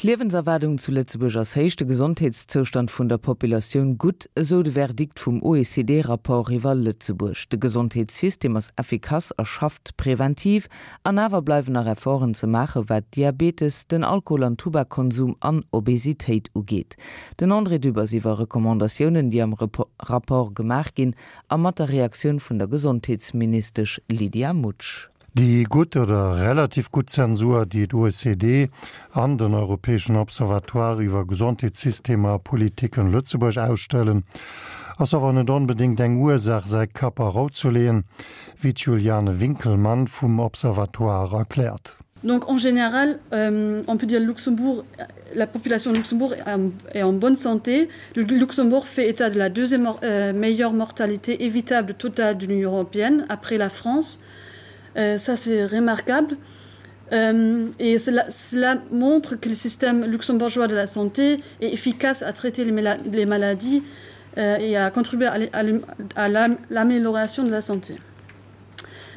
D'Liewenserwaardung zu Lëtzebuerg ass héich, de Gesondheetszoustand vun der Populatioun gutt, esou de Verdikt vum OECD-Rapport iwwer Lëtzebuerg. De Gesondheetssystem ass effikass a schafft preventiv. An awer bleiwen nach Efforten ze maachen, wat Diabetes, den Alkohol an Tubakkonsum an Obesitéit ugeet. Den André Dübbers iwwer Recommandatiounen, déi am Rapport gemaach ginn, a mat der Reaktioun vun der Gesondheetsministesch Lydia Mutsch. Déi gutt oder relativ gutt Zensur, déi d'OECD an den Europäeschen Observatoire iwwer Gesondheetssystemer a Politiken Lëtzebuerg ausstellen, ass awer net onbedéngt eng Ursaach, säi Kapp a Rou ze leeën, wéi d'Juliane Winkelmann vum Observatoire erkläert. Donc en général, euh, on peut dire Luxembourg, la population de Luxembourg est en bonne santé. Le Luxembourg fait état de la deuxième euh, meilleure mortalité évitable totale de l'Union européenne après la France. Euh, ça c'est remarquable. Euh, et cela, cela montre que le système luxembourgeois de la santé est efficace à traiter les, les maladies euh, et à contribuer à l'amélioration de la santé.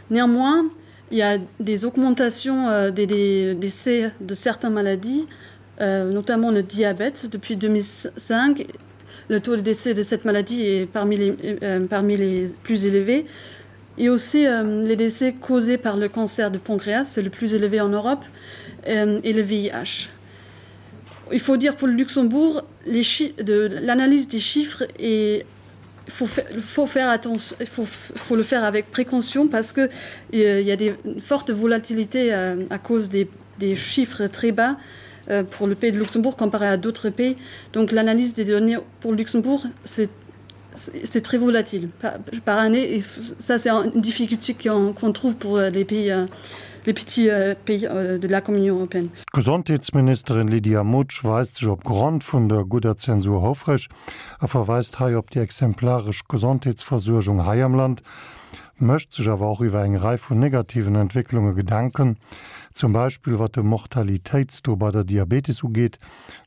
Néanmoins, il y a des augmentations euh, des, des décès de certaines maladies, euh, notamment le diabète. Depuis 2005, le taux de décès de cette maladie est parmi les, euh, parmi les plus élevés. Et aussi euh, les décès causés par le cancer du pancréas, c'est le plus élevé en Europe, euh, et le VIH. Il faut dire pour le Luxembourg, l'analyse des chiffres est faut, faut faire attention il faut, faut le faire avec précaution parce que euh, il y a des fortes volatilités euh, à cause des, des chiffres très bas euh, pour le pays de Luxembourg comparé à d'autres pays donc l'analyse des données pour Luxembourg c'est c'est très volatile par, par année et ça c'est une difficulté qu'on qu trouve pour euh, les pays euh, les petits euh, pays euh, de la Communion européenne. Gesondheetsministerin Lydia Mutsch weist sech op Grond vun der gudder Zensur houfreg a verweist hei op déi exemplaresch Gesondheetsversuergung hei am Land, mécht sech awer och iwwer eng Rei vun negativen Entwécklunge Gedanken, zum Beispill wat de Mortalitéitstaux bei der Diabetes ugeet,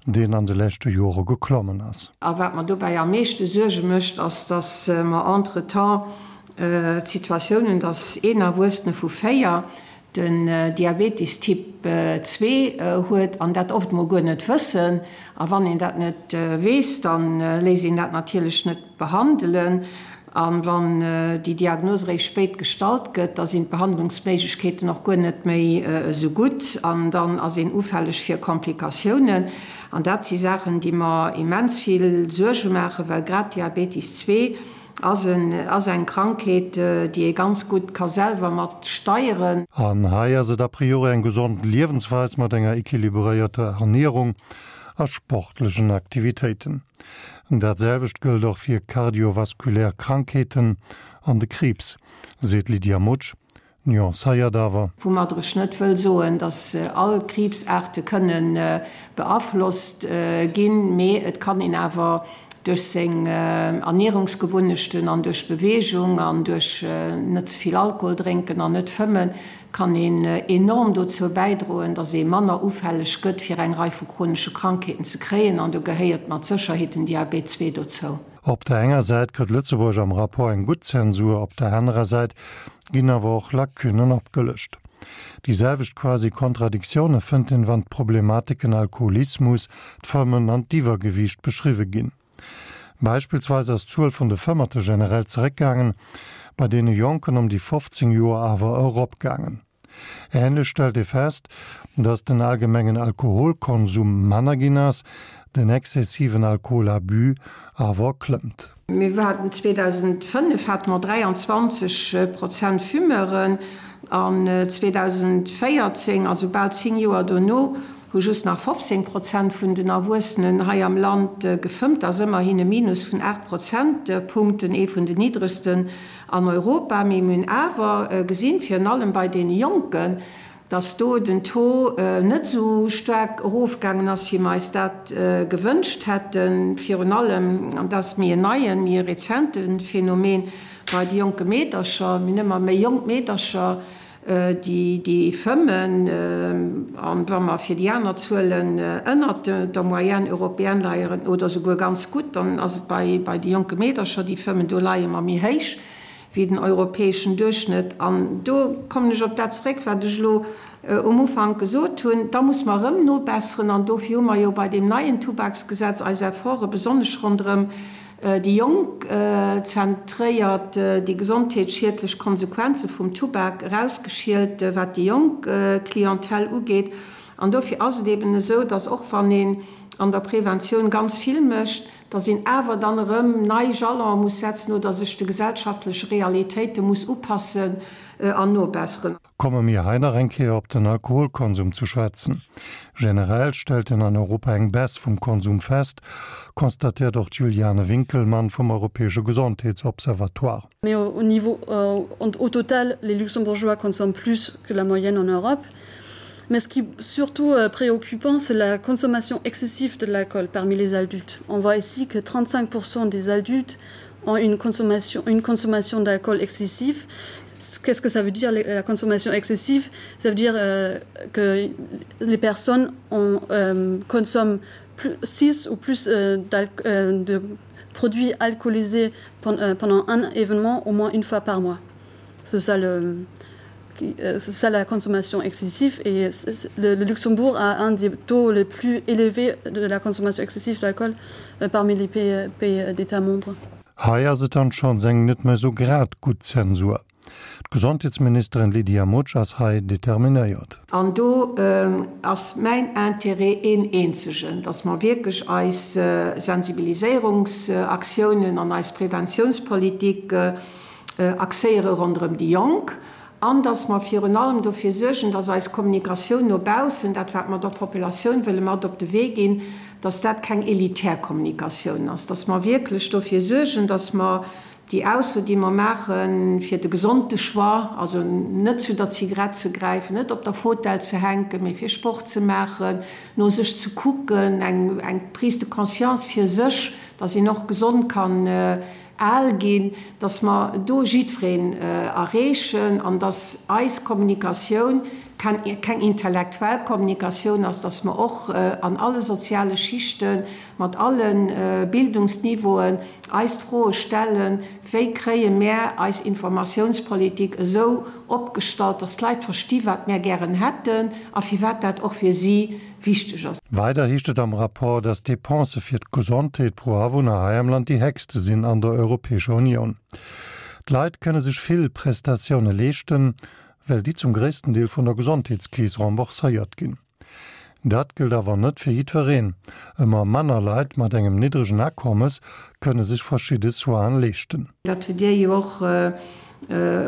deen an de leschte Jore geklommen ass. A wat mer dobäi am meeschte Suerge mécht, ass, dass mer entretemps d'Situatioun hunn, dass een Erwuessene vu 4 den Diabetes Typ 2 huet an dat oft mol guer net wëssen. A wann een dat net weess, da léisst een dat natierlech net behandelen. A wann déi Diagnos eréischt spéit gestallt gëtt, da sinn d'Behandlungsméiglechkeeten och guer net méi esou gutt an dann ass een ufälleg fir Komplikatiounen. An dat si Saachen, déi mer immens vill Suerge maachen, well grad Diabetes 2 Ass en ass eng Krankheet, déi ee ganz gutt ka selwer mat steieren. An hei ass et a priori eng gesond Liewensweis mat enger equilibréierter Ernierung a sportlechen Aktivitéiten. Dat selwecht gëllt och fir kardiovaskulär Krankheeten an de Kriibs, seet d'Lydia Mutsch. Nuancéiert awer. Woumadder ech net wëll soen, datt all Kriibsaarte kënne beaflosst ginn, mee et kann een awer duerch seng Ernierungsgewunnechten an duerch Beweegung an duerch net ze vill Alkohol drénken an net fëmmen, kann een enorm dozou bäidroen, datt ee manner ufälleg gëtt fir eng Rei vu chronesche Krankheeten ze kréien an do gehéiert mat Sécherheet den Diabet 2 dozou. Op der enger Säit kritt Lëtzebuerg am Rapport eng gutt Zensur, op der anerer Säit ginn awer och Lacunnen opgelëscht. Déi selwecht quasi Kontradiktioune fënnt een, wann d'Problematiken Alkoholismus, d'Fëmmen an d'Iwwergewiicht beschriwwe ginn. Beispillsweis ass d'Zuel vun de Fëmmerte generell zeréckgaangen, bei deene Jonken ëm déi 15 Joer awer eropgaangen. Änlech stellt ee fest, datt den allgemengen Alkoholkonsum manner ginn ass, den exzessiven Alkoholabus awer klëmmt. Mir haten 2005 hate mer 23 Prozent Fumeuren an 2014, also bal 10 Joer dono, hu just nach 15 Prozent vun den Erwuessenen hei am Land gefëmmt. Dat ass ëmmerhin e Minus vun 8 Prozentpunkten, ee vun den niddregsten an Europa. Mee mir hunn awer gesinn, virun allem bei deene Jonken, dass do den Taux net esou staark erofgaangen ass, wéi mer eis dat gewënscht hätten. Virun allem, an dat ass méi en neien, méi e rezente Phänomen, bei de jonke Meedercher. Mir hunn ëmmer méi jonk Meedercher, déi fëmmen. An wa mer fir déi aner Zuelen ënnert der Moyenne européenne leieren oder souguer ganz gutt, dann ass et bei de jonke Meedercher, déi fëmmen, do leie mer méi héich wéi den europäeschen Duerchschnëtt. An do kommen ech op dat zeréck, wat ech elo. um Ufank gesot hunn, da muss mer erëm nobesseren. An dofir hu mer jo bei deem neien Tubaksgesetz eis Efforte besonnesch ronderëm déi Jonk zentréiert, déi gesondheetsschiedlech Konsequenze vum Tubak erausgeschielt, wat déi jonk Clientèle ugeet. An dofir ass et eben esou, dass och wann een an der Preventioun ganz vill mécht, dass een awer dann erëm nei Jalone muss setzen oder sech de gesellschaftleche Realitéite muss upassen an nobesseren. Komme mir hei nach eng Kéier op den Alkoholkonsum zu schwätzen. Generell stellt een an Europa eng Baisse vum Konsum fest, constatéiert och d'Juliane Winkelmann vum Europäesche Gesondheetsobservatoire. Mais au niveau euh, au total, les Luxembourgeois consomment plus que la moyenne en Europe. Mais ce qui est surtout euh, préoccupant, c'est la consommation excessive de l'alcool parmi les adultes. On voit ici que 35% des adultes ont une consommation, une consommation d'alcool excessif. Qu'est-ce que ça veut dire la consommation excessive Ça veut dire euh, que les personnes ont, euh, consomment plus, 6 ou plus euh, euh, de produits alcoolisés pen, euh, pendant un événement au moins une fois par mois. C'est ça le euh, ça la consommation excessive et le, le Luxembourg a un des taux les plus élevés de la consommation excessive d'alcool euh, parmi les pays, euh, pays d'États membres. Hei ass et dann schonns eng net méi sou grad gutt Zensur. D'Gesondheetsministerin Lydia Mutsch ass hei determinéiert. An do ass mäin Intérêt een eenzegen, dass mer wierklech eis Sensibiliséierungsaktiounen an eis Preventiounspolitik axéiere ronderëm déi Jonk an dass mer virun allem dofir suergen, dass eis Kommunikatioun no baussen, dat wat mer der Populatioun wëlle mat op de Wee ginn, dass dat keng elitär Kommunikatioun ass, dass mer wierklech dofir suergen, dass mer déi Ausso, déi mer maachen, fir de gesonde Choix, also net zu der Zigarett ze gräifen, net op der Fotell ze hänken, mee fir Sport ze maachen, no sech ze kucken, eng Prise de conscience fir sech, dass een och gesond kann al ginn, dass mer do jiddwereen erreechen an dass eis Kommunikatioun keng intellektuell Kommunikatioun ass, dass mer och an alle soziale Schichten, mat alle Bildungsniveauen eis d'Froe stellen, Wéi kréie mär eis Informatiounspolitik esou opgestallt, dass d'Leit versti wat mär gären hätten a firwat dat och fir si wichteg ass. Weider heescht et am Rapport, datt d'Depensë fir d'Gesondheet pro Awunner hei am Land déi héchste sinn an der Europäescher Unioun. D'Leit kënne sech vill Prestatioune leeschten, well déi zum gréissten Deel vun der Gesondheetskeess rembourséiert ginn. Dat gëllt awer net fir jiddwereen. Ëmmer manner Leit mat engem niddregen Akommes kënne sech verschidde Soinen leeschten. Dat hutt Dir jo och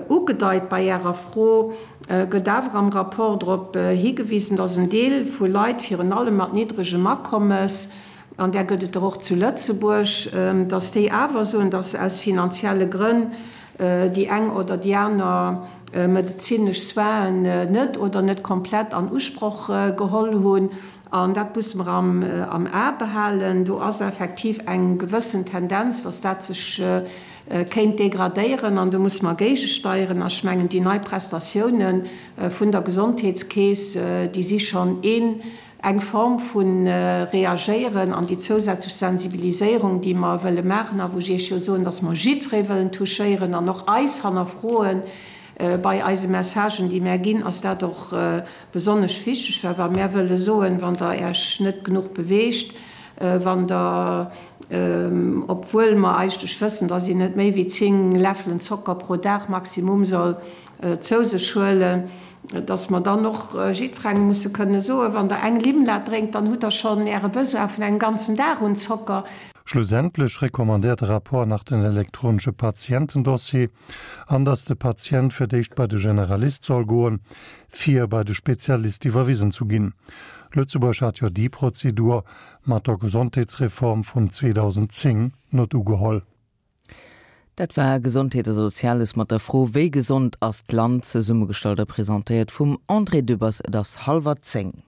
Ugedeit bei Ärer Fro, gëtt awer am Rapport drop higewisen, datt en Deel vu Leit, virun allem mat niddregem Akommes, an där gëtt et der och zu Lëtzebuerg, datt déi awer soen, datt se aus finanzielle Grënn déi eng oder déi aner medezinesch Soinen net oder net komplett an Usproch geholl hunn. An dat musse mer am A behalen. Do ass effektiv eng gewëssen Tendenz, dass dat sech kéint degradéieren an do musse mer géigesteieren. A ech mengen, déi nei Prestatiounen vun der Gesondheetskeess, déi si schonn een, eng Form vu Reagéieren an déi zousätzlech Sensibiliséierung, déi mer wëlle maachen a wou ech Iech jo soen, dass mer jiddweree wëllen touchéieren an och eis hannerfroen bei eise Messagen, déi mär ginn, ass dat och Besonnesch wichteg war, wa mär wëlle soen, wann Der Äech net genuch beweegt, wann Der, obwuel mer eigentlech wëssen, dass een net méi wéi 10 Läffelen Zocker pro Dag maximum soll zou sech huelen, dass mer dann och jiddwerengem musse kënne soen, wann Der eng Limlad drénkt, dann hutt Der schonn Äre Besoin vun engem ganzen Dag un Zocker. Schlussendlech recommandéiert de Rapport nach den elektronesche Patientendossier an dass de Patient fir d'éischt bei de Generalist soll goen, fir bei de Spezialist iwwerwisen zu ginn. Lëtzebuerg hat jo déi Prozedur mat der Gesondheetsreform vun 2010 net ugeholl. Dat war Gesondheet a Soziales mat der Fro Wéi gesond ass d'Land? zesummegestallt a presentéiert vum André Dübbers. Et ass hallwer 10.